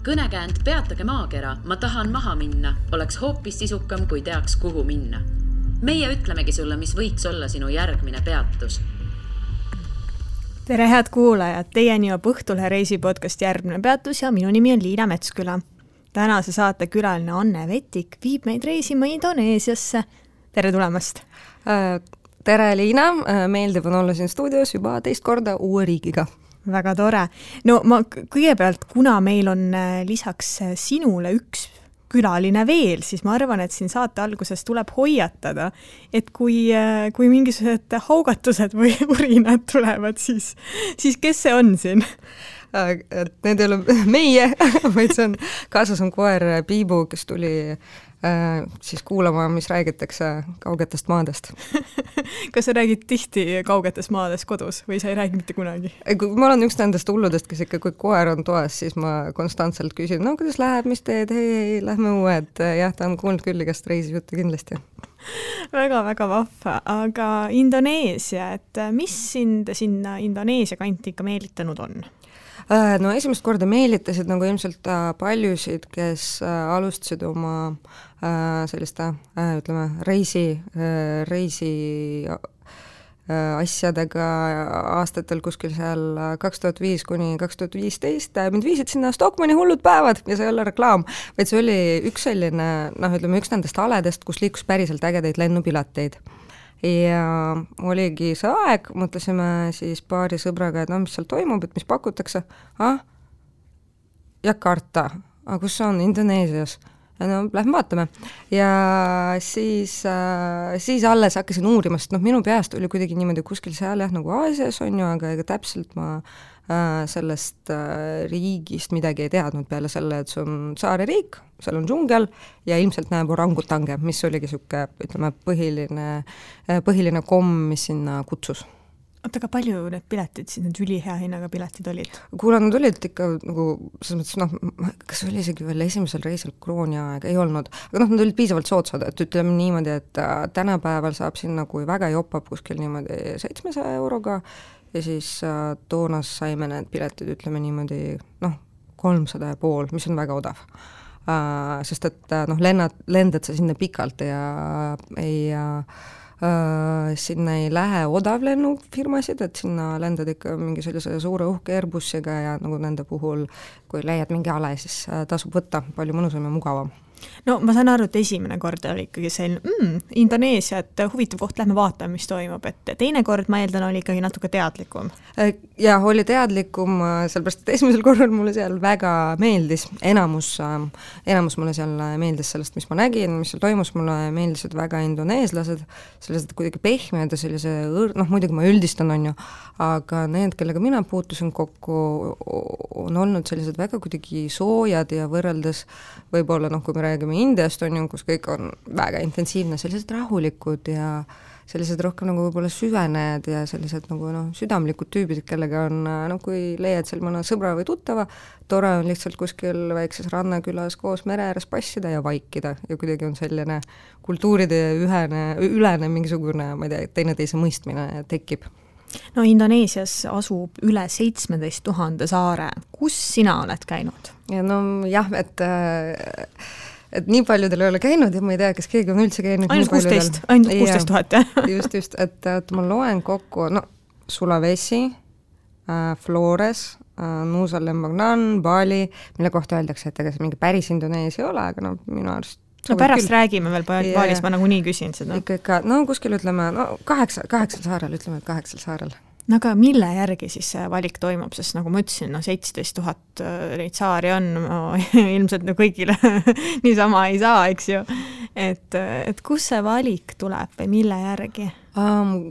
Kõnekäänd Peatage maakera, ma tahan maha minna, oleks hoopis sisukam, kui teaks, kuhu minna. Meie ütlemegi sulle, mis võiks olla sinu järgmine peatus. Tere head kuulajad, teieni jõuab Õhtulehe reisipodcast Järgmine peatus ja minu nimi on Liina Metsküla. Tänase saate külaline Anne Vetik viib meid reisima Indoneesiasse. Tere tulemast! Tere Liina, meeldiv on olla siin stuudios juba teist korda uue riigiga. Väga tore. No ma kõigepealt, kuna meil on lisaks sinule üks külaline veel, siis ma arvan, et siin saate alguses tuleb hoiatada, et kui mingisugused haugatused või urinad tulevad, siis kes see on siin? Need ei ole meie, vaid see on, kaasas on koer Piibu, kes tuli siis kuulama, mis räägitakse kaugetest maadest. Kas sa räägid tihti kaugetest maadest kodus või sa ei räägi mitte kunagi? Ma olen üks nendest hulludest, kes ikka, kui koer on toas, siis ma konstantselt küsin, no kuidas läheb, mis teed, hei, lähme uued. Jah, ta on kuulnud küll igast reisijuttu kindlasti. Väga-väga vahva, aga Indoneesia, et mis sind sinna Indoneesia kanti ikka meelitanud on? No esimest korda meelitasid nagu ilmselt paljusid, kes alustasid oma selliste, ütleme, reisi asjadega aastatel kuskil seal 2005 kuni 2015. Mind viisid sinna Stockmanni hullud päevad ja see ei ole reklaam, vaid see oli üks selline, üks nendest aledest, kus liikus päriselt ägedaid lennupileteid. Ja oligi see aeg, mõtlesime siis paari sõbraga, et mis seal toimub, et mis pakutakse. Jakarta, kus see on? Indoneesias. No, lähme vaatame. Ja siis alles hakkasin uurimast, minu peast oli kuidagi niimoodi kuskil seal nagu Aasias on ju, aga ega täpselt ma sellest riigist midagi ei teadnud peale selle, et see on saare riik, seal on džungel ja ilmselt näeb orangutange, mis oligi siuke, ütleme, põhiline komm, mis sinna kutsus. Oota, aga palju need piletid, siis need ülihea hinnaga piletid olid? Kuule, nad olid ikka nagu, selles mõttes, kas oli isegi veel esimesel reisil krooni aeg, ei olnud, aga nad olid piisavalt soodsad, et ütleme niimoodi, et tänapäeval saab sinna, kui väga jopab kuskil niimoodi 700 euroga ja siis toonas saime need piletid, ütleme niimoodi, 300,5, mis on väga odav. Sest et lendad sa sinna pikalt ja sinna ei lähe odavlennufirmasid, et sinna lendad ikka mingi sellise suure uhke Airbusiga ja nagu nende puhul, kui leiad mingi ale, siis tasub võtta palju mõnusam ja mugavam. No ma saan aru, et esimene kord oli ikkagi selline Indoneesia, et huvitav koht, lähme vaatame, mis toimub, et teine kord, ma eeldan, oli ikkagi natuke teadlikum. Ja oli teadlikum, sellepärast, et esimesel korral mulle seal väga meeldis, enamus mulle seal meeldis sellest, mis ma nägin, mis seal toimus, mulle meeldisid väga indoneeslased, sellised kuidagi pehmed ja sellise, muidugi ma üldistan on ju, aga need, kellega mina puutusin kokku, on olnud sellised väga kuidagi soojad ja võrreldes võib-olla, kui me räägime Indiast on ju, kus kõik on väga intensiivne, sellised rahulikud ja sellised rohkem nagu võib-olla süvened ja sellised nagu südamlikud tüübid, kellega on, kui leiad seal mõne sõbra või tuttava, tore on lihtsalt kuskil väikses rannakülas koos mere ääres passida ja vaikida ja kuidagi on selline kultuuride ülene mingisugune, ma ei tea, teineteise mõistmine tekib. No Indoneesias asub üle 17 000 saare. Kus sina oled käinud? Ja jah, et nii paljudel ei ole käinud ja ma ei tea, kas keegi on üldse käinud. Ainult 16 000, jah? Just, et ma loen kokku, Sulawesi, Flores, Nusa Lembongan, Bali, mille kohta öeldakse, et ega see mingi päris Indoneesia ei ole, aga minu arust pärast räägime veel Balis, ma nagu nii küsin seda. Ikka, kuskil ütleme, 8 saarel, ütleme, et 8 saarel. No aga mille järgi siis see valik toimub, sest nagu ma ütlesin, 17 000 neid saari on, ilmselt kõigile niisama ei saa, eks ju. Et kus see valik tuleb või mille järgi?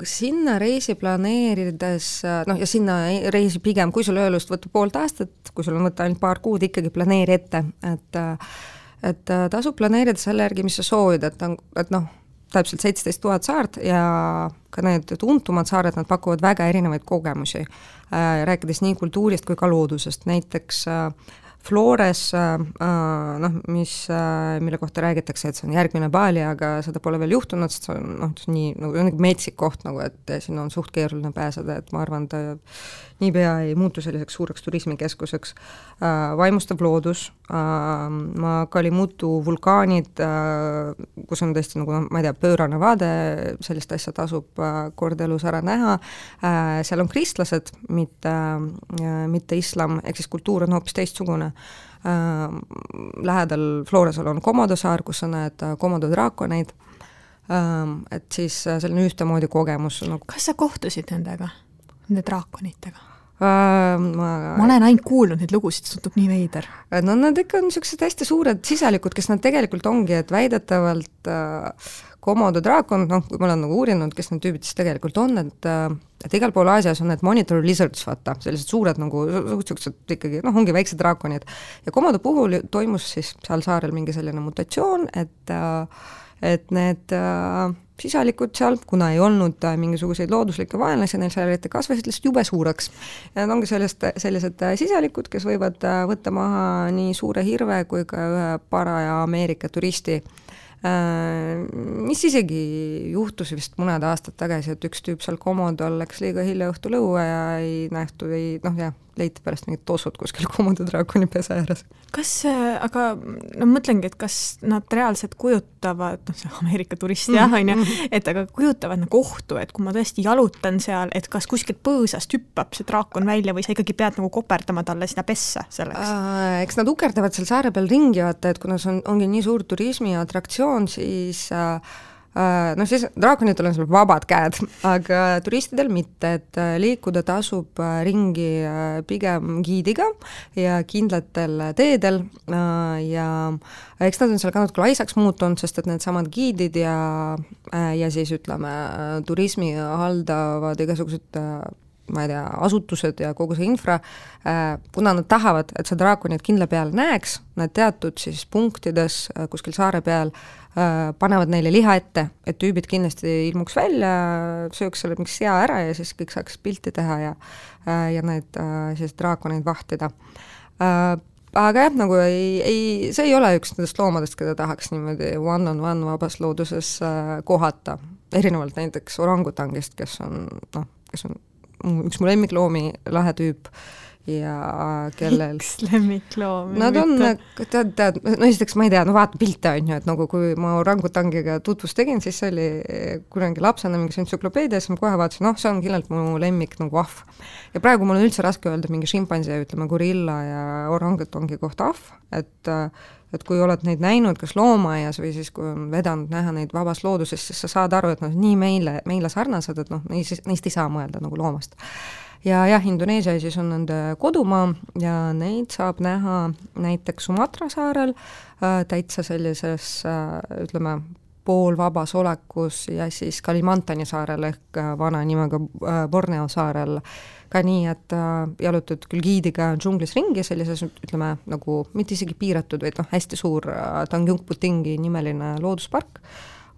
Sinna reisi planeerides, ja sinna reisi pigem, kui sul öölust võtta poolt aastat, kui sul on võtta ainult paar kuud, ikkagi planeeri ette, et tasub planeerida selle järgi, mis sa soovid, et täpselt 17 000 saart ja ka need tuntumad saared, nad pakuvad väga erinevaid kogemusi, rääkides nii kultuurist kui ka loodusest. Näiteks Flores, mille kohta räägitakse, et see on järgmine Bali, aga seda pole veel juhtunud, sest see on nii metsik koht, et sinna on suht keeruline pääseda, et ma arvan, ta niipea ei muutu selliseks suureks turismikeskuseks. Vaimustav loodus, Kalimutu vulkaanid, kus on tõesti nagu, ma ei tea, pöörane vaade, sellist asja tasub kord elus ära näha, seal on kristlased, mitte islam, ehk siis kultuur on hoopis teistsugune. Lähedal Floresal on Komodo saar, kus sa näed Komodo draakoneid, et siis selline ühtemoodi kogemus. Kas sa kohtusid nendega, nende draakonitega? Ma olen ainult kuulnud neid lugusid, see tundub nii veider. No nad ikka on niisugused hästi suured sisalikud, kes nad tegelikult ongi, et väidetavalt Komodo draakon, kui ma olen nagu uurinud, kes need tüübid siis tegelikult on, et igal pool Aasias on need monitor lizards, vaata, sellised suured nagu, niisugused ikkagi, ongi väiksed draakonid. Ja Komodo puhul toimus siis seal saarel mingi selline mutatsioon, et need sisalikud seal, kuna ei olnud mingisuguseid looduslikke vaenlasi, neil seal eriti kasvasid lihtsalt jube suureks. Ja need ongi sellised sisalikud, kes võivad võtta maha nii suure hirve kui ka ühe paraja Ameerika turisti, mis isegi juhtus vist mõned aastad tagasi, et üks tüüp seal Komodol läks liiga hilja õhtul õue ja ei nähtu, leiti pärast mingid tossud kuskil Komodo draakoni pesa ääres. Aga mõtlengi, et kas nad reaalselt kujutavad, see Ameerika turist on ju, et aga kujutavad nagu ohtu, et kui ma tõesti jalutan seal, et kas kuskilt põõsast hüppab see draakon välja või sa ikkagi pead nagu koperdama talle sinna pessa selleks? Eks nad ukerdavad seal saare peal ringi, vaata, et kuna see ongi nii suur turismi atraktsioon, siis siis draakonitel on seal vabad käed, aga turistidel mitte, et liikuda tasub ringi pigem giidiga ja kindlatel teedel ja eks nad on seal ka natuke laisaks muutunud, sest et need samad giidid ja siis ütleme turismi haldavad igasugused ma ei tea, asutused ja kogu see infra, kuna nad tahavad, et see draakonid kindla peal näeks, nad teatud siis punktides kuskil saare peal panevad neile liha ette, et tüübid kindlasti ilmuks välja, sööks selle mingi sea ära ja siis kõik saaks pilti teha ja need siis draakoneid vahtida. Aga jah, nagu see ei ole üks nendest loomadest, keda tahaks niimoodi one-on-one vabas looduses kohata, erinevalt näiteks orangutangist, kes on üks mu lemmikloomi, lahe tüüp ja kellel... Üks lemmikloomi? Nad on, esiteks ma ei tea, vaata pilte on ju, et nagu kui ma orangutangiga tutvust tegin, siis see oli kunagi lapsena mingis entsüklopeedias, ma kohe vaatasin, see on kindlalt mu lemmik nagu ahv. Ja praegu mul on üldse raske öelda mingi šimpansi, ütleme gorilla ja orangutangi kohta ahv, et kui oled neid näinud kas loomaaias või siis kui on vedanud näha neid vabas looduses, siis sa saad aru, et nii meile sarnased, et neist ei saa mõelda nagu loomast. Ja Indoneesia siis on nende kodumaa ja neid saab näha näiteks Sumatra saarel täitsa sellises, ütleme, poolvabas olekus ja siis Kalimantani saarel ehk vana nimega Borneo saarel ka nii, et jalutad küll giidiga džunglis ringi sellises, ütleme, nagu mitte isegi piiratud, vaid hästi suur Tanjung Putingi nimeline looduspark,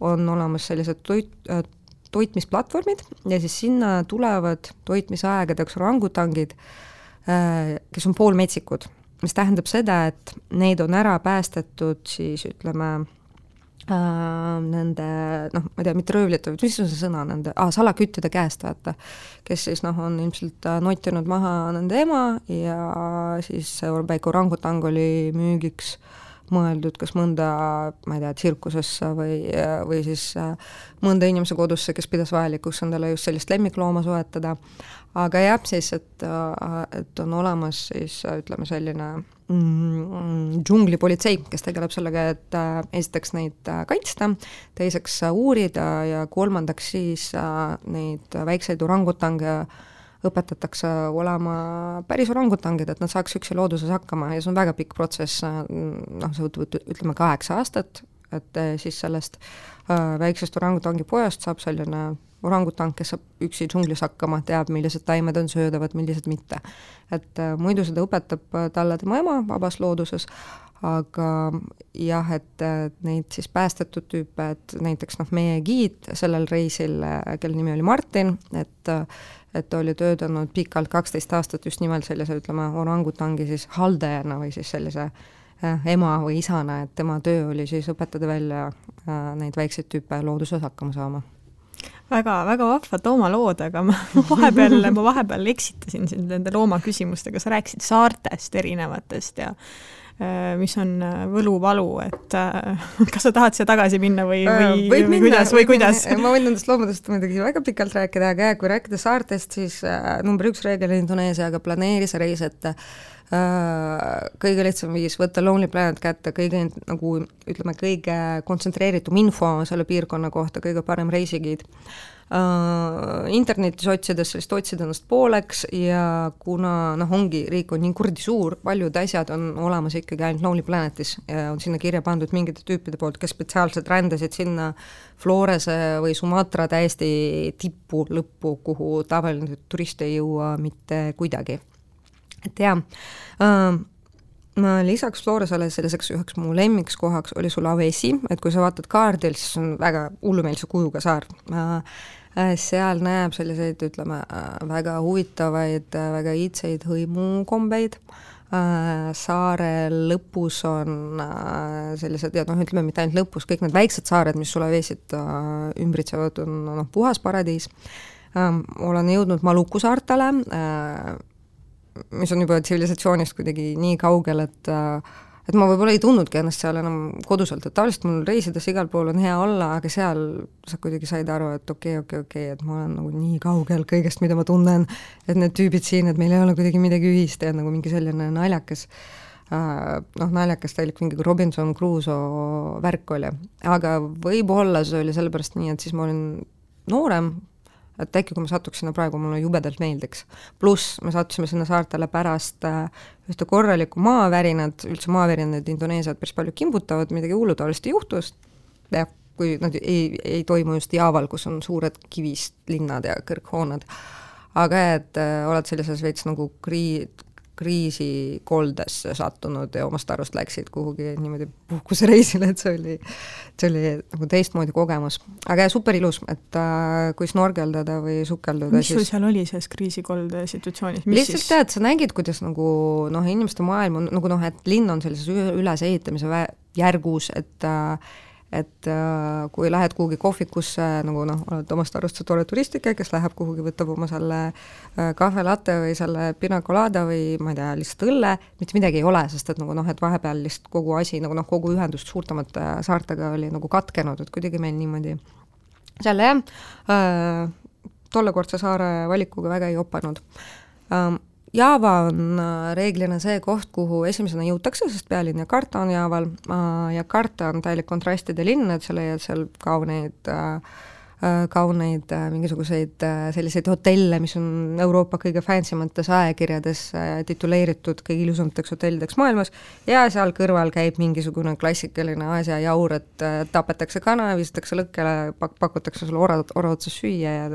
on olemas sellised toitmisplatvormid ja siis sinna tulevad toitmisaegadeks orangutangid, kes on poolmetsikud, mis tähendab seda, et neid on ära päästetud siis ütleme nende, ma ei tea, mitte röövlite, mis on see sõna nende, salaküttide käest, vaata, kes siis on ilmselt notinud maha nende ema ja siis väike orangutang oli müügiks mõeldud kas mõnda, ma ei tea, tsirkusesse või siis mõnda inimese kodusse, kes pidas vajalikuks endale just sellist lemmiklooma soetada. Aga jah, siis, et on olemas siis, ütleme, selline džunglipolitsei, kes tegeleb sellega, et esiteks neid kaitsta, teiseks uurida ja kolmandaks siis neid väikseid orangutange õpetatakse olema päris orangutangid, et nad saaks üksi looduses hakkama ja see on väga pikk protsess, see võtab, ütleme, 8 aastat, et siis sellest väiksest orangutangi pojast saab selline orangutang, kes saab üksi džunglis hakkama, teab, millised taimed on söödavad, millised mitte. Et muidu seda õpetab talle tema ema vabas looduses, aga jah, et neid siis päästetud tüüpe, et näiteks meie giid sellel reisil, kelle nimi oli Martin, et oli töötanud pikalt 12 aastat just nimelt sellise, ütleme, orangutangi siis haldajana või siis sellise ema või isana, et tema töö oli siis õpetada välja neid väikseid tüüpe looduses hakkama saama. Väga vahvad loomalood, aga ma vahepeal eksitasin sind nende loomaküsimustega, sa rääkisid saartest erinevatest ja mis on võluvalu, et kas sa tahad siia tagasi minna või kuidas? Ma võin nendest loomudest muidugi väga pikalt rääkida, aga kui rääkida saartest, siis number 1 reegel Indoneesiaga planeeri see reis, et kõige lihtsam viis võtta Lonely Planet kätte, kõige nagu ütleme, kõige kontsentreeritum info selle piirkonna kohta, kõige parem reisigiid. Internetis otsides sellist otsida ennast pooleks ja kuna ongi, riik on nii kurdi suur, paljud asjad on olemas ikkagi ainult Lonely Planetis ja on sinna kirja pandud mingite tüüpide poolt, kes spetsiaalselt rändasid sinna Florese või Sumatra täiesti tippu lõppu, kuhu tavaline turist ei jõua mitte kuidagi. Et jah, lisaks Floresele selliseks üheks mu lemmiks kohaks oli Sulawesi, et kui sa vaatad kaardil, siis on väga hullumeelse kujuga saar. Seal näeb selliseid, ütleme, väga huvitavaid, väga iidseid hõimukombeid. Saare lõpus on sellised, ja ütleme mitte ainult lõpus, kõik need väiksed saared, mis Sulawesit ümbritsevad, on puhas paradiis. Olen jõudnud Maluku saartele, mis on juba tsivilisatsioonist kuidagi nii kaugel, et ma võib-olla ei tundnudki ennast seal enam koduselt, et tavaliselt mul reisides igal pool on hea olla, aga seal sa kuidagi said aru, et okei, et ma olen nagu nii kaugel kõigest, mida ma tunnen, et need tüübid siin, et meil ei ole kuidagi midagi ühist ja nagu mingi selline naljakas, naljakas täielik mingi Robinson Crusoe värk oli. Aga võib-olla see oli sellepärast nii, et siis ma olin noorem, et äkki kui ma satuks sinna praegu, mulle jubedalt meeldiks. Pluss me sattusime sinna saartele pärast ühte korralikku maavärinad, üldse maavärinad Indoneesiat päris palju kimbutavad, midagi hullutavalist juhtus, ja kui nad ei toimu just Jaaval, kus on suured kivist linnad ja kõrghoonad. Aga et oled sellises veits nagu kriisikoldesse sattunud ja omast arust läksid kuhugi niimoodi puhkusereisile, et see oli nagu teistmoodi kogemus. Aga super ilus, et kui snorgeldada või sukelduda. Mis sul seal oli selles kriisikolde situatsioonis? Lihtsalt tead, sa nägid, kuidas nagu inimeste maailm on, nagu et linn on sellises ülesehitamise järgus, et kui lähed kuhugi kohvikusse, nagu oled omast arust see tore turistike, kes läheb kuhugi, võtab oma selle kahve latte või selle pina colada või ma ei tea, lihtsalt õlle, mitte midagi ei ole, sest et et vahepeal lihtsalt kogu asi, kogu ühendust suurtamate saartega oli nagu katkenud, et kuidagi meil niimoodi selle tollekordse saare valikuga väga ei opanud. Jaava on reeglina see koht, kuhu esimesena jõutakse, sest pealinn Jakarta on Jaaval. Jakarta on täielik kontrastide linn, et sa leiad seal kauneid mingisuguseid selliseid hotelle, mis on Euroopa kõige fancymates ajakirjades tituleeritud kõige ilusamateks hotellideks maailmas ja seal kõrval käib mingisugune klassikaline Aasia jaur, et tapetakse kana, visatakse lõkkele, pakutakse sulle ora otsas süüa ja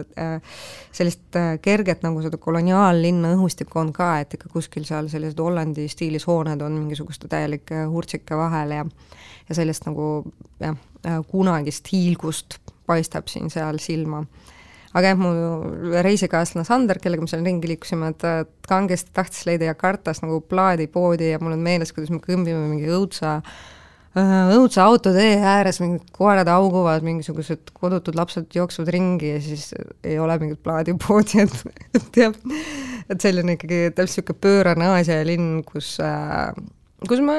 sellist kerget nagu seda koloniaallinna õhustikku on ka, et ikka kuskil seal sellised Hollandi stiilis hooned on mingisuguste täielike hurtsike vahel ja sellist nagu kunagist hiilgust paistab siin seal silma. Aga mu reisikaaslane Sander, kellega me seal ringi liikusime, et kangesti tahtis leida Jakartas nagu plaadipoodi ja mul on meeles, kuidas me kõmbime mingi õudsa autotee ääres, mingid koerad auguvad, mingisugused kodutud lapsed jooksuvad ringi ja siis ei ole mingit plaadipoodi, et selline ikkagi täpselt siuke pöörane Aasia linn, kus ma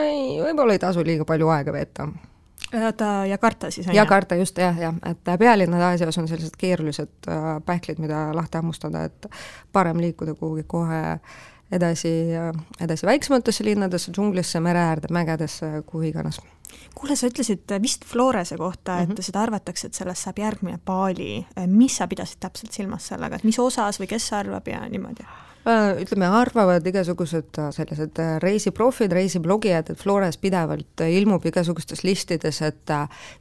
võib-olla ei tasu liiga palju aega veeta. Jakarta siis on? Jakarta just, jah, et pealinnad Aasias on sellised keerulised pähklid, mida lahti hammustada, et parem liikuda kuhugi kohe edasi väiksematesse linnadesse, džunglisse, mereäärde, mägedesse, kuhu iganes. Kuule, sa ütlesid vist Florese kohta, et seda arvatakse, et sellest saab järgmine Bali. Mis sa pidasid täpselt silmas sellega, et mis osas või kes arvab ja niimoodi? Ütleme, arvavad igasugused sellised reisiprofid, reisiblogijad, et Flores pidevalt ilmub igasugustes listides, et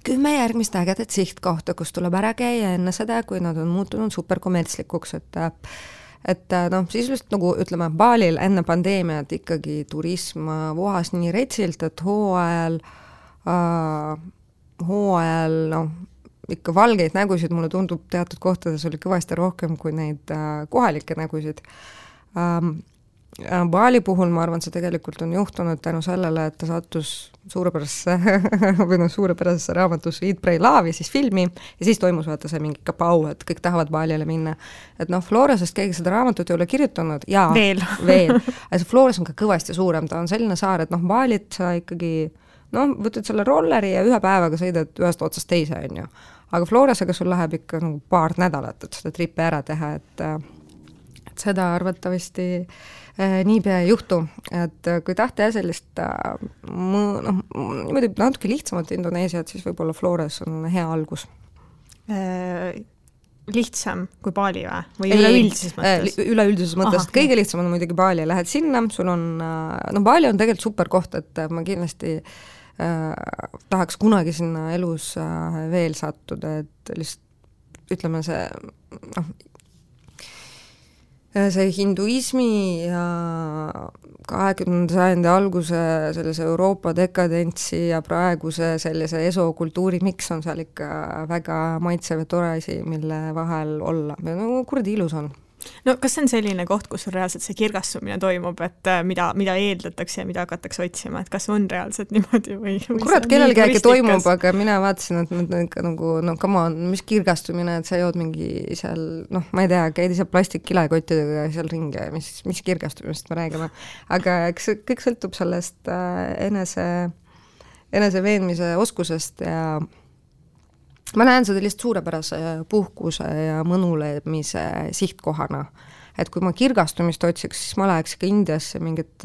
10 järgmist ägedat sihtkohta, kus tuleb ära käia enne seda, kui nad on muutunud superkommertslikuks, et sisuliselt nagu ütleme, Balil enne pandeemiat ikkagi turism vohas nii retsilt, et hooajal ikka valgeid nägusid, mulle tundub teatud kohtades oli kõvasti rohkem kui neid kohalikke nägusid. Bali puhul ma arvan, see tegelikult on juhtunud tänu sellele, et ta sattus suurepärasesse raamatusse Eat, Pray, Love ja siis filmi ja siis toimus vaata see mingi kapau, et kõik tahavad Balile minna. Et Floresest keegi seda raamatut ei ole kirjutanud ja veel. Aga see Flores on ka kõvasti suurem, ta on selline saar, et Balit sa ikkagi võtad selle rolleri ja ühe päevaga sõidad ühest otsast teise, on ju. Aga Floresega sul läheb ikka paar nädalat, et seda tripi ära teha, et seda arvatavasti niipea ei juhtu, et kui tahta sellist niimoodi natuke lihtsamat Indoneesiat, siis võib-olla Flores on hea algus. Lihtsam kui Bali või üleüldises mõttes? Üleüldises mõttes, et kõige lihtsam on muidugi Bali, lähed sinna, sul on, Bali on tegelikult super koht, et ma kindlasti tahaks kunagi sinna elus veel sattuda, et lihtsalt ütleme see hinduismi ja 20. sajandi alguse sellise Euroopa dekadentsi ja praeguse sellise esokultuuri miks on seal ikka väga maitsev ja tore asi, mille vahel olla. Kurdi ilus on. No kas see on selline koht, kus reaalselt see kirgastumine toimub, et mida eeldatakse ja mida hakatakse otsima, et kas on reaalselt niimoodi või kurat, kellelgi äkki toimub, aga mina vaatasin, et come on, mis kirgastumine, et sa jood mingi seal, ma ei tea, käid ise plastikkilekottidega seal ringi, mis kirgastumist me räägime. Aga eks kõik sõltub sellest enese veenmise oskusest ja ma näen seda lihtsalt suurepärase puhkuse ja mõnulemise sihtkohana. Et kui ma kirgastumist otsiks, siis ma läheks ikka Indiasse mingit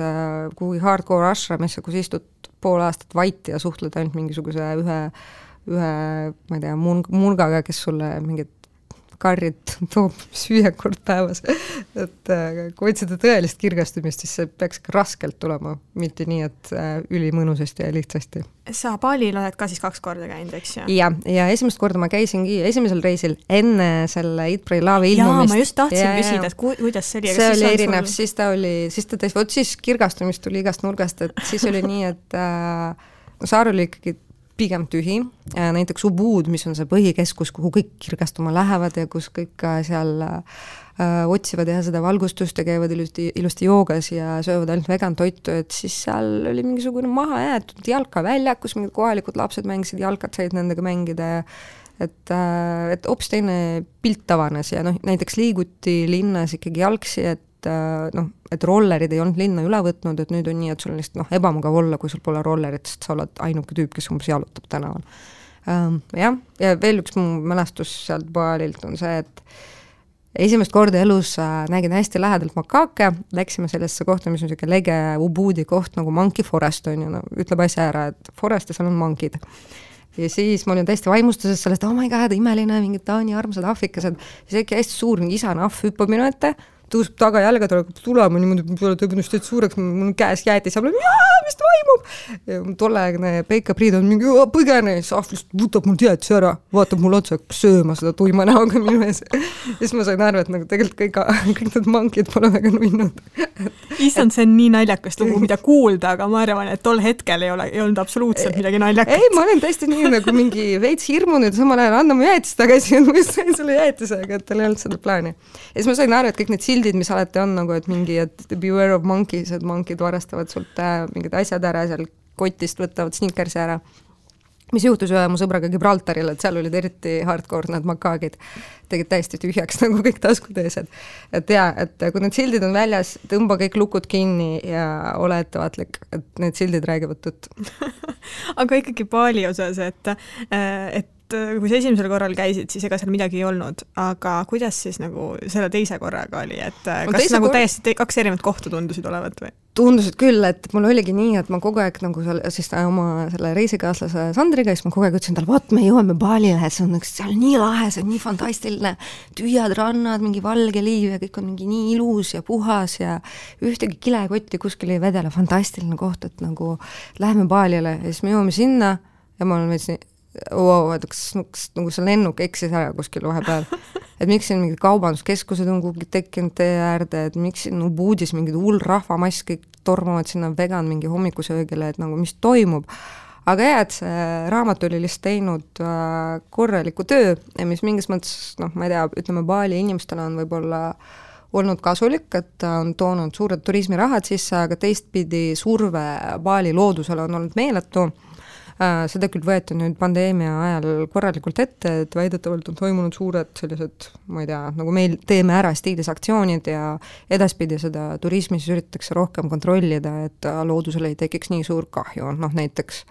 kuhugi hardcore ashramisse, kus istud pool aastat vaiti ja suhtled ainult mingisuguse ühe ma ei tea, murgaga, kes sulle mingit karrit toob süüa kord päevas. Et kui otsida tõelist kirgastumist, siis see peaks ka raskelt tulema, mitte nii, et ülimõnusasti ja lihtsasti. Sa Balil oled ka siis 2 korda käinud, eks ju? Ja esimest korda ma käisingi esimesel reisil enne selle Eat, Pray, Love ilmumist. Ma just tahtsin küsida, et kuidas see oli? See oli erinev, siis kirgastumist tuli igast nurgast, et siis oli nii, et saar oli ikkagi pigem tühi, näiteks Ubud, mis on see põhikeskus, kuhu kõik kirgastuma lähevad ja kus kõik seal otsivad ja seda valgustust ja käivad ilusti joogas ja söövad ainult vegan toitu, et siis seal oli mingisugune maha jäetud jalkavälja, kus mingid kohalikud lapsed mängisid, jalkat said nendega mängida ja et hoopis teine pilt avanes ja näiteks liiguti linnas ikkagi jalgsi, et rollerid ei olnud linna üle võtnud, et nüüd on nii, et sul on lihtsalt ebamugav olla, kui sul pole rollerit, sest sa oled ainuke tüüp, kes umbes jalutab tänaval. Ja veel üks mu mälestus sealt Balilt on see, et esimest korda elus nägin hästi lähedalt makaake, läksime sellesse kohta, mis on selline lege Ubudi koht nagu Monkey Forest on ju, ütleb asja ära, et forest ja seal on monkid. Ja siis ma olin täiesti vaimustuses sellest, oh my god, imeline, mingid Taani armsad ahvikesed, siis äkki hästi suur mingi isane ahv hüppab minu ette, tõuseb taga jalga, tulema niimoodi, peale tõbnust teed suureks, mul käes jäeti, saab mis toimub? Ja tolleaegne Peika Priid on mingi põgene, siis ahv lihtsalt võtab mul teadsi ära, vaatab mul otsa, sööma seda tuima näoga minu ees. Ja siis ma sain aru, et tegelikult kõik need mankid pole väga nunnud. Issand, see on nii naljakast lugu, mida kuulda, aga ma arvan, et tol hetkel ei olnud absoluutselt midagi naljakat. Ei, ma olen täiesti nii nagu mingi veits hirmunud, samal ajal anna mu jäätis tagasi, et ma just sain selle jäätisega, et tal ei olnud seda plaani. Ja siis ma sain aru, et kõik need sildid, mis alati on nagu, et mingi, et beware of monkeys, et monkid varastavad sult mingid asjad ära, seal kotist võtavad snickersi ära. Mis juhtus ühe mu sõbraga Gibraltaril, et seal olid eriti hardcore need makaagid, tegid täiesti tühjaks nagu kõik taskuteesed. Et kui need sildid on väljas, tõmba kõik lukud kinni ja ole ettevaatlik, et need sildid räägivad tõtt. Aga ikkagi Bali osas, et kui sa esimesel korral käisid, siis ega seal midagi ei olnud, aga kuidas siis nagu selle teise korraga oli, et kas nagu täiesti 2 erinevat kohta tundusid olevat või? Tundusid küll, et mul oligi nii, et ma kogu aeg nagu siis oma selle reisikaaslase Sandriga, siis ma kogu aeg ütlesin tal, vaat me jõuame Balile, see on seal nii lahe, see on nii fantastiline, tühjad rannad, mingi valge liiv ja kõik on mingi nii ilus ja puhas ja ühtegi kilekotti kuskil ei vedele, fantastiline koht, et nagu läheme Balile ja siis me jõuame sinna ja ma olen veits nii kas nagu see lennuk eksis ära kuskil vahepeal, et miks siin mingid kaubanduskeskused on kuhugi tekkinud tee äärde, et miks siin Ubudis mingid hull rahvamass kõik tormavad sinna vegan mingi hommikusöögile, et nagu mis toimub. Aga et see raamat oli lihtsalt teinud korraliku töö, mis mingis mõttes, ma ei tea, ütleme Bali inimestele on võib-olla olnud kasulik, et ta on toonud suured turismirahad sisse, aga teistpidi surve Bali loodusele on olnud meeletu. Seda küll võeti nüüd pandeemia ajal korralikult ette, et väidetavalt on toimunud suured sellised, ma ei tea, nagu meil teeme ära stiilis aktsioonid ja edaspidi seda turismis üritatakse rohkem kontrollida, et loodusele ei tekiks nii suur kahju. Näiteks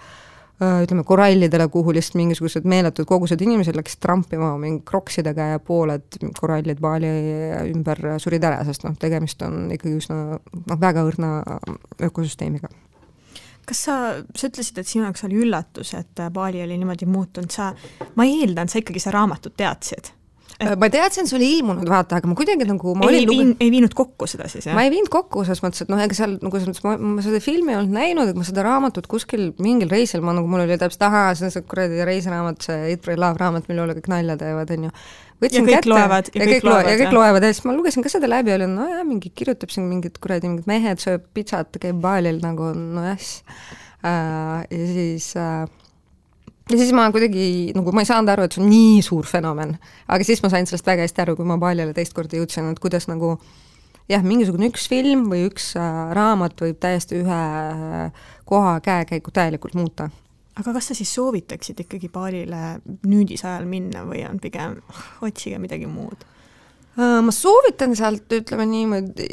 ütleme korallidele, kuhu lihtsalt mingisugused meeletud kogused inimesed läksid trampima mingi kroksidega ja pooled korallid Bali ümber surid ära, sest tegemist on ikkagi üsna väga õrna ökosüsteemiga. Kas sa ütlesid, et sinu jaoks oli üllatus, et Bali oli niimoodi muutunud, ma eeldan, sa ikkagi raamatut teadsid? Ma teadsin, see oli ilmunud, vaata, aga ma kuidagi nagu... Ei viinud kokku seda siis, jah? Ma ei viinud kokku, selles mõttes, et ega seal, ma seda filmi ei olnud näinud, et ma seda raamatut kuskil mingil reisil, mul oli täpselt, see on see kuradi reisiraamat, see Eat, Pray, Love raamat, mille üle kõik nalja teevad, on ju. Ja kõik loevad. Ja kõik loevad, ja siis ma lugesin ka seda läbi, oli, mingi kirjutab siin mingid kuradi, mingid mehed sööb pitsat, käib Balil nagu, ja siis ma kuidagi, ma ei saanud aru, et see on nii suur fenomen, aga siis ma sain sellest väga hästi aru, kui ma Balile teist korda jõudsin, et kuidas nagu mingisugune üks film või üks raamat võib täiesti ühe koha käekäigu täielikult muuta. Aga kas sa siis soovitaksid ikkagi Balile nüüdisajal minna või on pigem otsige midagi muud? Ma soovitan sealt, ütleme niimoodi,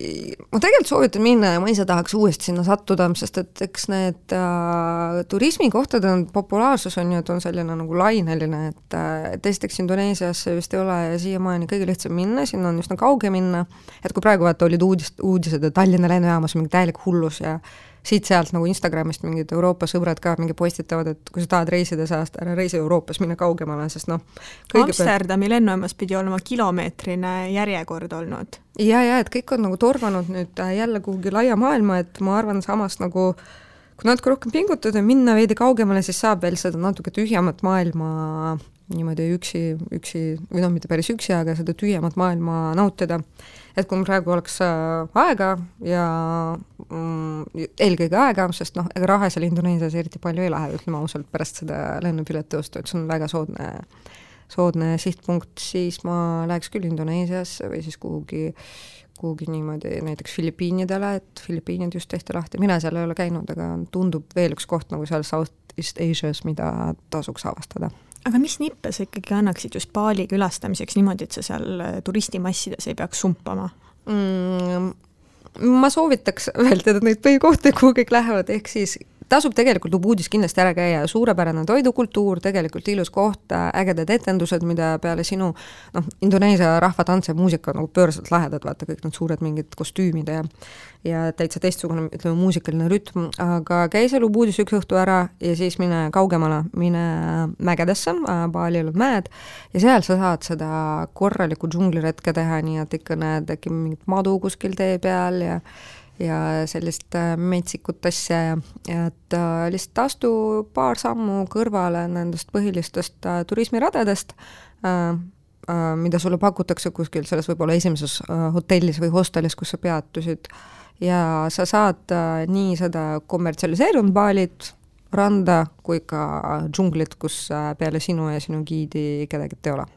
ma tegelikult soovitan minna ja ma ise tahaks uuesti sinna sattuda, sest et eks need turismikohtade populaarsus on ju, et on selline nagu laineline, et esiteks Indoneesiasse vist ei ole ja siiamaani kõige lihtsam minna, sinna on üsna kauge minna, et kui praegu vaata olid uudised, et Tallinna lennujaamas on mingi täielik hullus ja siit-sealt nagu Instagramist mingid Euroopa sõbrad ka mingi postitavad, et kui sa tahad reisida saast, ära reisi Euroopas, minna kaugemale, sest Amsterdami lennujaamas pidi olema kilomeetrine järjekord olnud. Ja, et kõik on nagu torvanud nüüd jälle kuhugi laia maailma, et ma arvan samas nagu, kui natuke rohkem pingutada ja minna veidi kaugemale, siis saab veel seda natuke tühjamat maailma niimoodi üksi, või mitte päris üksi, aga seda tühjamat maailma nautida. Et kui praegu oleks aega ja eelkõige aega, sest ega raha seal Indoneesias eriti palju ei lähe, ütleme ausalt pärast seda lennupileti ostu, et see on väga soodne sihtpunkt, siis ma läheks küll Indoneesiasse või siis kuhugi niimoodi näiteks Filipiinidele, et Filipiinid just tehti lahti. Mina seal ei ole käinud, aga tundub veel üks koht nagu seal Southeast Asias, mida tasuks avastada. Aga mis nippe sa ikkagi annaksid just Bali külastamiseks niimoodi, et sa seal turistimassides ei peaks sumpama? Ma soovitaks vältida neid põhikohti, kuhu kõik lähevad, ehk siis tasub tegelikult Ubudis kindlasti ära käia, suurepärane toidukultuur, tegelikult ilus koht, ägedad etendused, mida peale sinu Indoneesia rahvatants ja muusika nagu pööraselt lahedad, vaata kõik need suured mingid kostüümid ja täitsa teistsugune, ütleme, muusikaline rütm, aga käi seal Ubudis üks õhtu ära ja siis mine kaugemale, mine mägedesse, Balil on mäed ja seal sa saad seda korralikku džungliretke teha, nii et ikka näed äkki mingit madu kuskil tee peal ja sellist metsikut asja, et lihtsalt astu paar sammu kõrvale nendest põhilistest turismiradadest, mida sulle pakutakse kuskil selles võib-olla esimeses hotellis või hostelis, kus sa peatusid ja sa saad nii seda kommertsialiseerunud Balit, randa kui ka džunglit, kus peale sinu ja sinu giidi kedagi ei ole.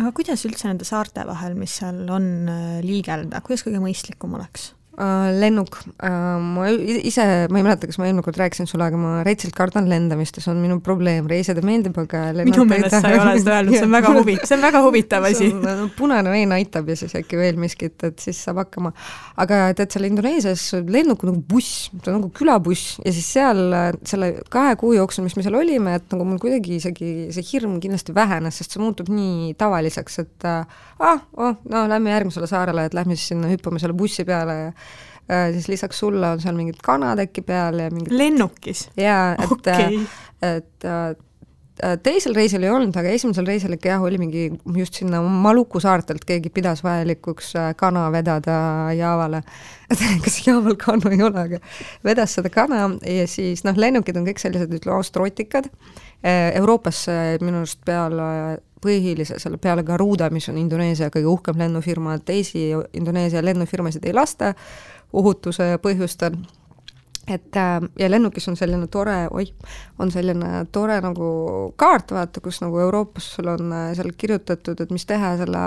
Aga kuidas üldse nende saarte vahel, mis seal on liigelda, kuidas kõige mõistlikum oleks? Lennuk. Ma ei mäleta, kas ma eelmine kord rääkisin sulle, aga ma reitsilt kardan lendamist ja see on minu probleem. Reisida meeldib, aga minu meelest sa ei ole seda öelnud, see on väga huvitav asi. Punane vein aitab ja siis äkki veel miskit, et siis saab hakkama. Aga tead, seal Indoneesias lennuk on nagu buss, see on nagu külabuss ja siis seal selle 2 kuu jooksul, mis me seal olime, et nagu mul kuidagi isegi see hirm kindlasti vähenes, sest see muutub nii tavaliseks, et lähme järgmisele saarele, et lähme siis sinna hüppame selle bussi peale ja siis lisaks sulle on seal mingid kanad äkki peal ja mingid... Lennukis? Jaa, et teisel reisil ei olnud, aga esimesel reisil ikka oli mingi just sinna Maluku saartelt keegi pidas vajalikuks kana vedada Jaavale. Kas Jaaval kana ei ole, aga vedas seda kana ja siis lennukid on kõik sellised, ütleme, austrotikad. Euroopas minu arust selle peale Garuda, mis on Indoneesia kõige uhkem lennufirma, teisi Indoneesia lennufirmasid ei lasta ohutuse põhjustel. ja lennukis on selline tore, nagu kaart, vaata, kus nagu Euroopas sul on seal kirjutatud, et mis teha selle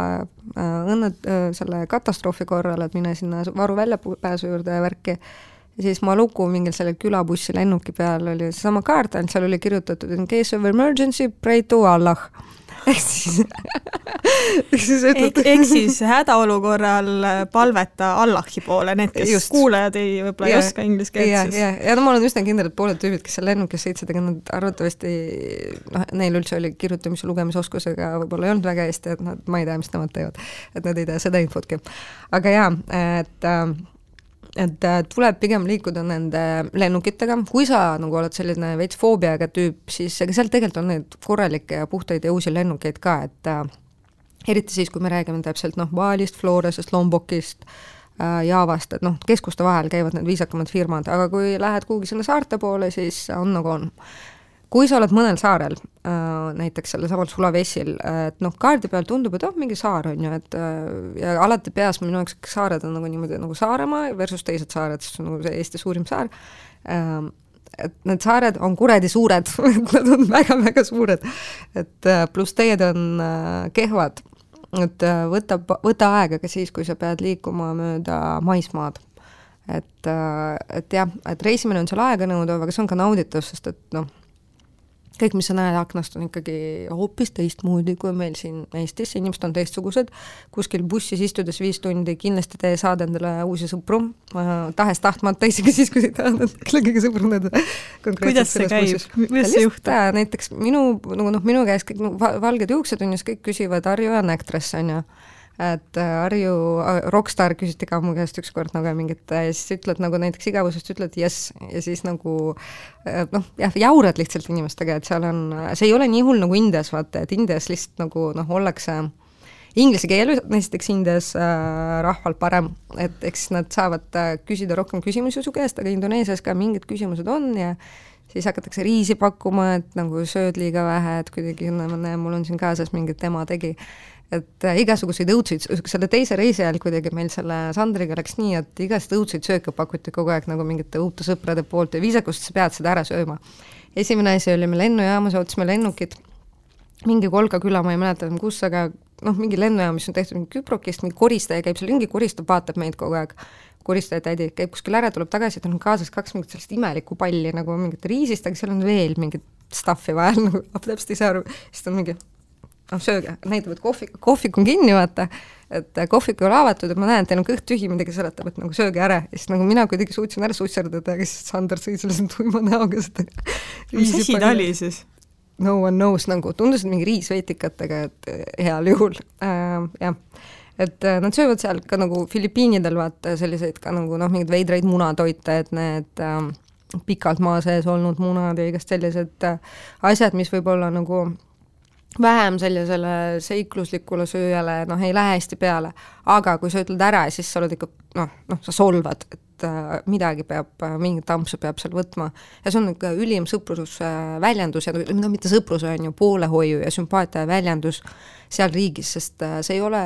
katastroofi korral, et mine sinna varu väljapääsu juurde ja värki. Ja siis Maluku mingil selle külabussi lennuki peal oli seesama kaart, ainult seal oli kirjutatud in case of emergency, pray to Allah. Ehk siis hädaolukorral palveta Allahi poole, need, kes just kuulajad võib-olla ei oska inglise keelt. Ja no ma olen üsna kindel, et pooled tüübid, kes seal lennukis sõitsid, aga nad arvatavasti, neil üldse oli kirjutamise lugemisoskusega võib-olla ei olnud väga hästi, et ma ei tea, mis nemad teevad, et nad ei tea seda infotki. Aga et tuleb pigem liikuda nende lennukitega, kui sa nagu oled selline veits foobiaga tüüp, siis ega seal tegelikult on need korralikke ja puhtaid ja uusi lennukeid ka, et eriti siis, kui me räägime täpselt Balist, Floresest, Lombokist, Javast, et keskuste vahel käivad need viisakamad firmad, aga kui lähed kuhugi sinna saarte poole, siis on nagu on. Kui sa oled mõnel saarel, näiteks selle samal Sulawesiil, et kaardi peal tundub, et mingi saar on ju, et ja alati peas minu jaoks saared on nagu niimoodi nagu Saaremaa versus teised saared, sest nagu see Eesti suurim saar, et need saared on kuredi suured, nad on väga-väga suured, et pluss teed on kehvad, et võta aega ka siis, kui sa pead liikuma mööda maismaad. Et jah, et reisimine on seal aega nõudav, aga see on ka nauditav, sest et kõik, mis sa näed aknast, on ikkagi hoopis teistmoodi kui meil siin Eestis, inimesed on teistsugused, kuskil bussis istudes 5 tundi kindlasti te saad endale uusi sõpru, tahes tahtmata, isegi siis, kui sa tahad kõige sõbruneda. Kuidas see käib? Kuidas see juhtab? Näiteks minu käes kõik valged juuksetunnis kõik küsivad Arju ja Actress, on ju. Et Arju, Rockstar küsiti ka mu käest ükskord nagu mingit, ja siis ütled nagu näiteks igavusest, ütled yes, ja siis nagu jaurad lihtsalt inimestega, et seal on, see ei ole nii hull nagu Indias, vaata, et Indias lihtsalt nagu ollakse inglise keel, näiteks Indias rahval parem, et eks nad saavad küsida rohkem küsimusi su käest, aga Indoneesias ka mingid küsimused on ja siis hakatakse riisi pakkuma, et nagu sööd liiga vähe, et kuidagi mul on siin kaasas mingit ema tegi, et igasuguseid õudseid, selle teise reisi ajal kuidagi meil selle Sandriga läks nii, et igast õudseid sööke pakuti kogu aeg nagu mingite uute sõprade poolt ja viisakust sa pead seda ära sööma. Esimene asi oli me lennujaamas, ootasime lennukit, mingi Kolga küla, ma ei mäleta kus, aga mingi lennujaam, mis on tehtud mingi Küprokist, mingi koristaja käib seal ringi, koristab, vaatab meid kogu aeg, koristaja tädi käib kuskil ära, tuleb tagasi, et on kaasas 2 mingit sellist imelikku palli nagu mingit riisist, aga seal on veel mingit stuffi vahel, nagu täpselt ei saa aru, siis on mingi sööge, näitavad kohvik on kinni, vaata, et kohvik ei ole avatud, et ma näen, et teil on kõht tühi, midagi seletab, et nagu sööge ära, ja siis nagu mina kuidagi suutsin ära susserdada, aga siis Sander sõi selle tuima näoga seda. Mis asi ta oli siis? No one knows, nagu tundusid mingi riisveitikatega, et heal juhul, jah. Et nad söövad seal ka nagu Filipiinidel, vaata, selliseid ka nagu mingid veidraid munatoite, et need pikalt maa sees olnud munad ja igast sellised asjad, mis võib olla nagu vähem sellisele seikluslikule sööjale, ei lähe hästi peale, aga kui sa ütled ära, siis sa oled ikka, sa solvad, et midagi peab, mingit tampsu peab seal võtma ja see on ikka ülim sõprusväljendus ja mitte sõprus on ju poolehoiu ja sümpaatia väljendus seal riigis, sest see ei ole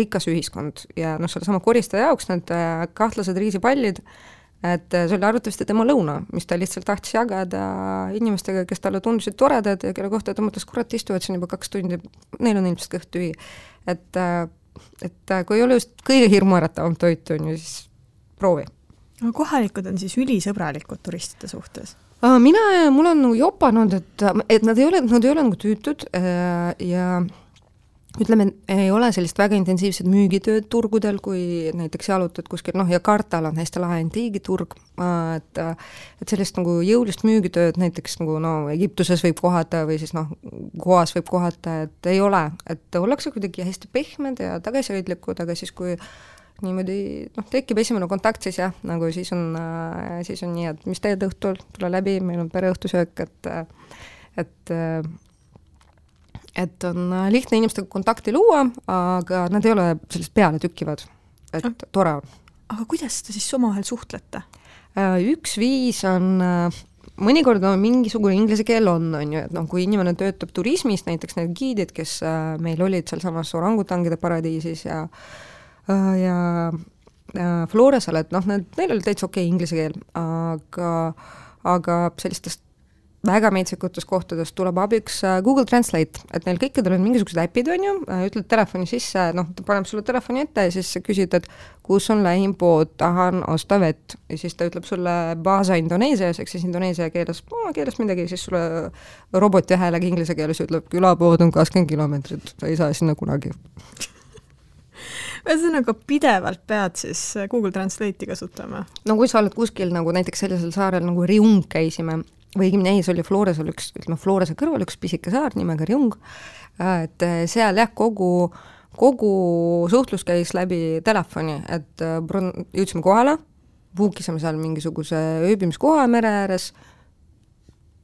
rikas ühiskond ja selle sama koristaja jaoks need kahtlased riisipallid, et see oli arvatavasti tema lõuna, mis ta lihtsalt tahtis jagada inimestega, kes talle tundusid toredad ja kelle kohta ta mõtles, kurat, istuvad siin juba 2 tundi, neil on ilmselt kõht tühi. Et kui ei ole just kõige hirmuäratavam toit, on ju, siis proovi. Kohalikud on siis ülisõbralikud turistide suhtes? Mul on nagu jopanud, et nad ei ole nagu tüütud ja ütleme, ei ole sellist väga intensiivset müügitööd turgudel, kui näiteks jalutad kuskil, ja Kartal on hästi lahe antiigiturg, et sellist nagu jõulist müügitööd näiteks nagu Egiptuses võib kohata või siis Goas võib kohata, et ei ole, et ollakse kuidagi hästi pehmed ja tagasihoidlikud, aga siis kui niimoodi, tekib esimene kontakt, siis jah, nagu siis on nii, et mis teed õhtul, tule läbi, meil on pereõhtusöök, et on lihtne inimestega kontakti luua, aga nad ei ole sellist peale tükkivad, et tore on. Aga kuidas te siis omavahel suhtlete? Üks viis on, mõnikord mingisugune inglise keel on ju, et kui inimene töötab turismis, näiteks need giidid, kes meil olid seal samas orangutangide paradiisis ja Floresel, et noh, neil oli täitsa okei inglise keel, aga sellistest väga metsikutes kohtades tuleb abiks Google Translate, et neil kõikidel on mingisugused äpid, on ju, ütled telefoni sisse, noh, ta paneb sulle telefoni ette ja siis sa küsid, et kus on lähim pood, tahan osta vett ja siis ta ütleb sulle baasa Indoneesias, eks siis Indoneesia keeles midagi, siis sulle roboti häälega inglise keeles ütleb, külapood on 20 kilomeetrit, sa ei saa sinna kunagi. Ühesõnaga pidevalt pead siis Google Translate'i kasutama? No kui sa oled kuskil nagu näiteks sellisel saarel nagu Riung käisime, või õigemini see oli Floresel Florese kõrval üks pisike saar nimega Riung, et seal jah, kogu suhtlus käis läbi telefoni, et jõudsime kohale, puukisime seal mingisuguse ööbimiskoha mere ääres,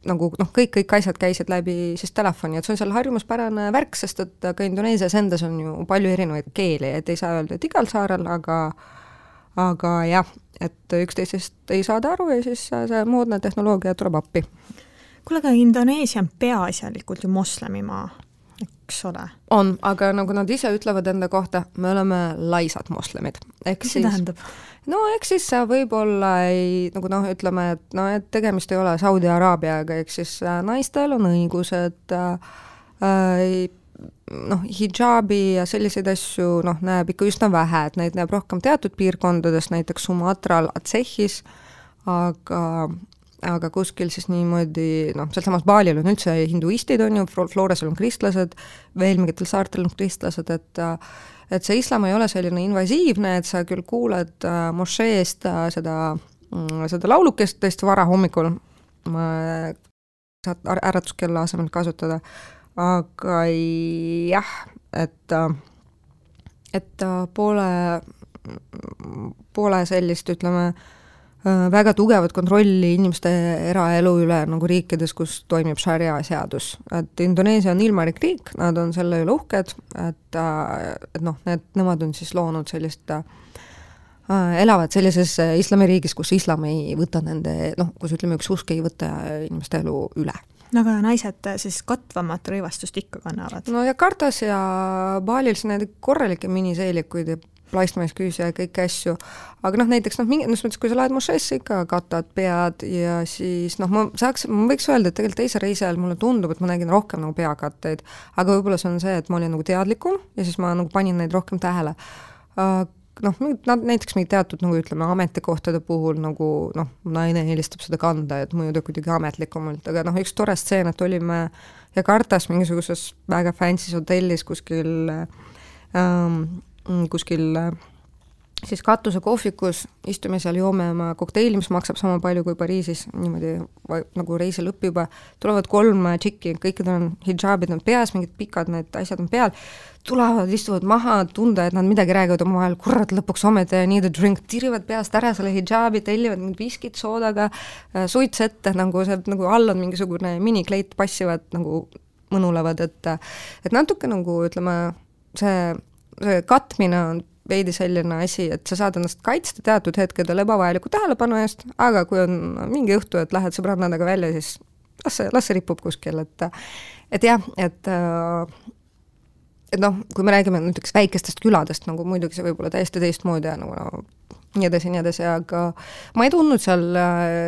nagu noh, kõik asjad käisid läbi siis telefoni, et see on seal harjumuspärane värk, sest et ka Indoneesias endas on ju palju erinevaid keeli, et ei saa öelda, et igal saarel, aga jah, et üksteisest ei saada aru ja siis see moodne tehnoloogia tuleb appi. Kuule, aga Indoneesia on peaasjalikult ju moslemimaa, eks ole? On, aga nagu nad ise ütlevad enda kohta, me oleme laisad moslemid. Mis see tähendab? No eks siis võib-olla nagu noh, ütleme, et tegemist ei ole Saudi Araabiaga, eks siis naistel on õigused, noh, hijaabi ja selliseid asju näeb ikka üsna vähe, et neid näeb rohkem teatud piirkondades, näiteks Sumatral, Acehis, aga kuskil siis niimoodi, sealsamas Balil on üldse hinduistid, on ju, Floresel on kristlased, veel mingitel saartel on kristlased, et see islam ei ole selline invasiivne, et sa küll kuuled mošeest seda laulukest tõesti vara hommikul, saad äratuskella asemel kasutada, aga jah, et pole sellist, ütleme, väga tugevat kontrolli inimeste eraelu üle nagu riikides, kus toimib šaria seadus. Et Indoneesia on ilmarik riik, nad on selle üle uhked, et noh, nemad on siis loonud sellist, elavad sellises islamiriigis, kus islam ei võta nende, kus ütleme, üks usk ei võta inimeste elu üle. Aga naised siis katvamat rõivastust ikka kannavad? No Jakartas ja Balil need korralikke miniseelikuid ja plaistmaisküüsi ja kõiki asju, aga näiteks mingis mõttes, kui sa lähed mošeesse, ikka katad pead ja siis ma võiks öelda, et tegelikult teise reisi ajal mulle tundub, et ma nägin rohkem nagu peakatteid, aga võib-olla see on see, et ma olin nagu teadlikum ja siis ma nagu panin neid rohkem tähele. Näiteks mingi teatud, nagu ütleme, ametikohtade puhul nagu naine eelistab seda kanda, et mõjuda kuidagi ametlikumalt, aga üks tore stseen, et olime Jakartas mingisuguses väga fancy's hotellis kuskil siis katuse kohvikus, istume seal, joome oma kokteili, mis maksab sama palju kui Pariisis, niimoodi nagu reisi lõpp juba, tulevad 3 tšikki, kõikidel on hijaabid, on peas, mingid pikad need asjad on peal, tulevad, istuvad maha, tunda, et nad midagi räägivad omavahel, kurat, lõpuks ometi need drink, tirivad peast ära selle hijaabi, tellivad mingid viskid soodaga, suits ette, nagu see, nagu all on mingisugune minikleit, passivad, nagu mõnulevad, et natuke nagu, ütleme, see katmine on veidi selline asi, et sa saad ennast kaitsta teatud hetkedel ebavajaliku tähelepanu eest, aga kui on mingi õhtu, et lähed sõbrannadega välja, siis las see ripub kuskil, et jah, et kui me räägime näiteks väikestest küladest, nagu muidugi see võib olla täiesti teistmoodi ja nagu nii edasi, aga ma ei tundnud seal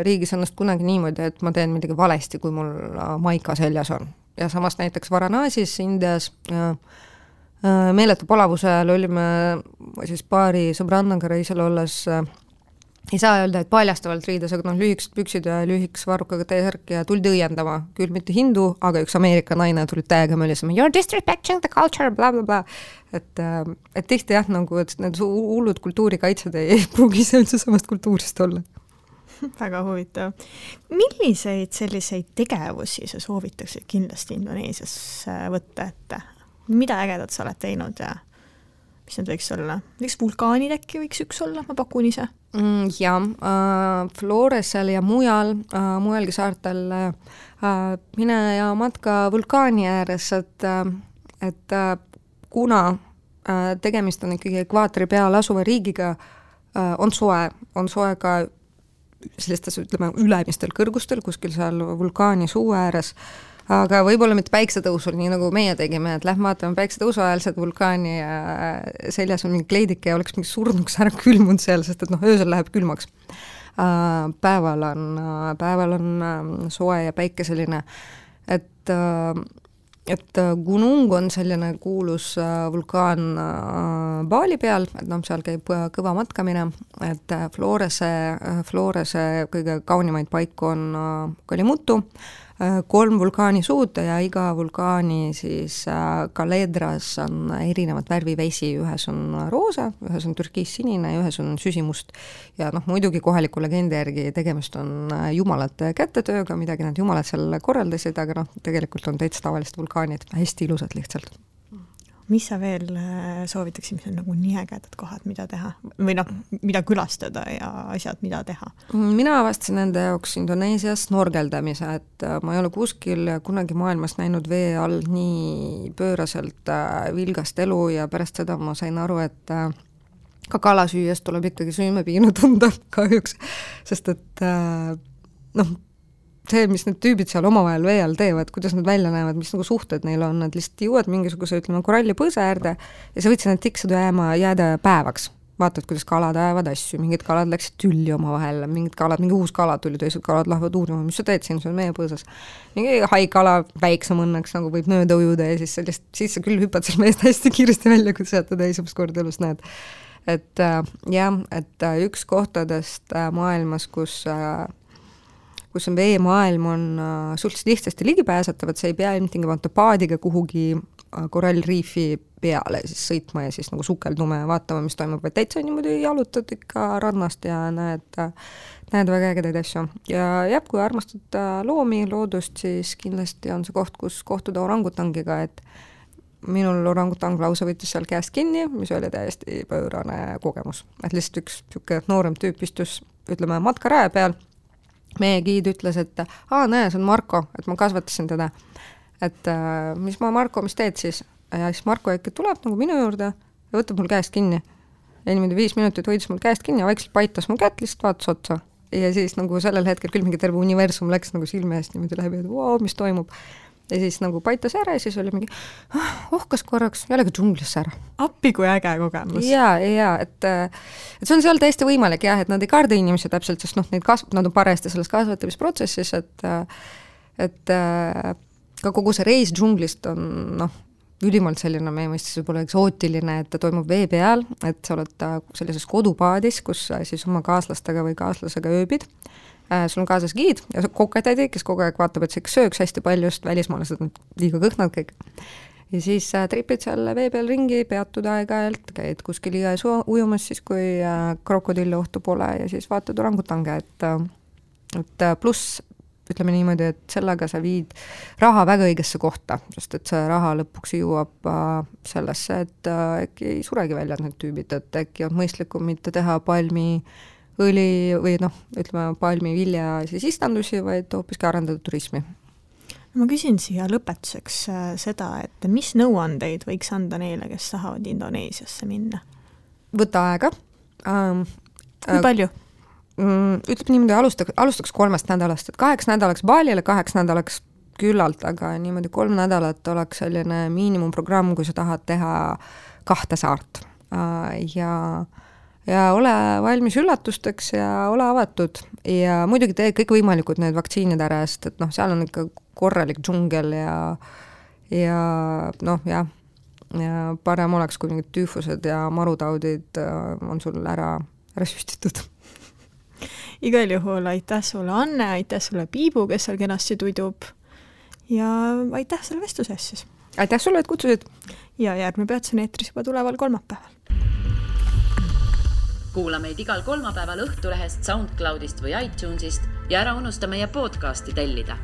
riigis ennast kunagi niimoodi, et ma teen midagi valesti, kui mul maika seljas on. Ja samas näiteks Varanasis, Indias meeletu palavuse ajal olime siis paari sõbrannaga reisil olles, ei saa öelda, et paljastavalt riides, aga lühikesed püksid ja lühikes varrukaga T-särk ja tuldi õiendama, küll mitte hindu, aga üks Ameerika naine tuli täiega mölisema, you're disrespecting the culture, bla bla bla. Et tihti jah, nagu, et need hullud kultuurikaitsed ei pruugi üldse samast kultuurist olla. Väga huvitav. Milliseid selliseid tegevusi sa soovitaksid kindlasti Indoneesias võtta ette? Mida ägedat sa oled teinud ja mis need võiks olla? Võiks vulkaanid äkki võiks üks olla, ma pakun ise? Floresel ja mujalgi saartel mine ja matka vulkaani ääres, et kuna tegemist on ikkagi ekvaatori peal asuva riigiga, on soe ka sellistes, ütleme, ülemistel kõrgustel, kuskil seal vulkaani suu ääres, aga võib-olla mitte päiksetõusul, nii nagu meie tegime, et lähme vaatame päiksetõusu ajal seda vulkaani ja seljas on mingi kleidike ja oleks mingi surnuks ära külmunud seal, sest et öösel läheb külmaks. Päeval on soe ja päikeseline, et Gunung on selline kuulus vulkaan Bali peal, et seal käib kõva matkamine, et Florese kõige kaunimaid paiku on Kalimutu, 3 vulkaanisuud ja iga vulkaani siis kaledras on erinevat värvivesi, ühes on roosa, ühes on türkiissinine ja ühes on süsimust. Ja muidugi kohaliku legendi järgi tegemist on jumalate kätetööga, midagi nad jumalad seal korraldasid, aga tegelikult on täitsa tavalist vulkaanid, hästi ilusad lihtsalt. Mis sa veel soovitaksid, mis on nagu nii ägedad kohad, mida teha? Või mida külastada ja asjad, mida teha? Mina avastasin enda jaoks Indoneesias snorgeldamise, et ma ei ole kuskil kunagi maailmas näinud vee all nii pööraselt vilgast elu ja pärast seda ma sain aru, et ka kala süües tuleb ikkagi süümepiinu tunda kahjuks, sest et see, mis need tüübid seal omavahel vee all teevad, kuidas nad välja näevad, mis nagu suhted neil on, nad lihtsalt jõuad mingisuguse, koralli põõsa äärde ja sa võtsid need tiksud jääda päevaks. Vaatad, kuidas kalad ajavad asju, mingid kalad läksid tülli omavahel, mingi uus kala tuli, teised kalad lähevad uurima, mis sa teed siin, see on meie põõsas. Mingi haikala väiksem õnneks nagu võib mööda ujuda ja siis sa küll hüppad seal meest hästi kiiresti välja, kui sa seda esimest korda elus näed. Et üks kohtadest maailmas, kus on veemaailm, on suhteliselt lihtsasti ligipääsetav, et see ei pea ilmtingimata paadiga kuhugi korallriifi peale siis sõitma ja siis nagu sukeldume ja vaatama, mis toimub, vaid täitsa niimoodi jalutad ikka rannast ja näed väga ägedaid asju. Ja kui armastad loomi, loodust, siis kindlasti on see koht, kus kohtuda orangutangiga, et minul orangutang lausa võttis seal käest kinni, mis oli täiesti pöörane kogemus. Et lihtsalt üks noorem tüüp istus, ütleme, matkaraja peal. Meie giid ütles, et näe, see on Marko, et ma kasvatasin teda. Et mis teed siis? Ja siis Marko äkki tuleb nagu minu juurde ja võtab mul käest kinni. Ja niimoodi 5 minutit hoidis mul käest kinni ja vaikselt paitas mul kätt, lihtsalt vaatas otsa. Ja siis nagu sellel hetkel küll mingi terve universum läks nagu silme eest niimoodi läbi, et mis toimub. Ja siis nagu paitas ära ja siis oli mingi ohkas korraks, jällegi džunglisse ära. Appi kui äge kogemus. Ja, et see on seal täiesti võimalik jah, et nad ei karda inimesi täpselt, sest nad on parajasti selles kasvatamisprotsessis, et ka kogu see reis džunglist on ülimalt selline meie mõistes võib-olla eksootiline, et ta toimub vee peal, et sa oled sellises kodupaadis, kus siis oma kaaslastega või kaaslasega ööbid. Sul on kaasas giid ja kokatädi, kes kogu aeg vaatab, et see sööks hästi palju, just välismaalased on liiga kõhnad kõik. Ja siis tripid seal vee peal ringi, peatud aeg-ajalt, käid kuskil jões ujumas siis, kui krokodilli ohtu pole ja siis vaatad orangutange, et pluss ütleme niimoodi, et sellega sa viid raha väga õigesse kohta, sest et see raha lõpuks jõuab sellesse, et äkki ei suregi välja need tüübid, et äkki on mõistlikum mitte teha õli või ütleme palmivilja siis istandusi, vaid hoopiski arendada turismi. Ma küsin siia lõpetuseks seda, et mis nõuandeid võiks anda neile, kes tahavad Indoneesiasse minna? Võta aega. Kui palju? Ütleb niimoodi, alustaks 3 nädalast, et 8 nädalaks Balile, 8 nädalaks küllalt, aga niimoodi 3 nädalat oleks selline miinimumprogramm, kui sa tahad teha 2 saart. Ja ole valmis üllatusteks ja ole avatud ja muidugi tee kõik võimalikud need vaktsiinid ära, sest et seal on ikka korralik džungel ja parem oleks, kui mingid tüüfused ja marutaudid on sul ära süstitud. Igal juhul aitäh sulle, Anne, aitäh sulle, Piibu, kes seal kenasti tudub ja aitäh selle vestluse eest siis. Aitäh sulle, et kutsusid. Ja järgmine peatus on eetris juba tuleval kolmapäeval. Kuula meid igal kolmapäeval Õhtulehest, SoundCloudist või iTunesist ja ära unusta meie podcasti tellida.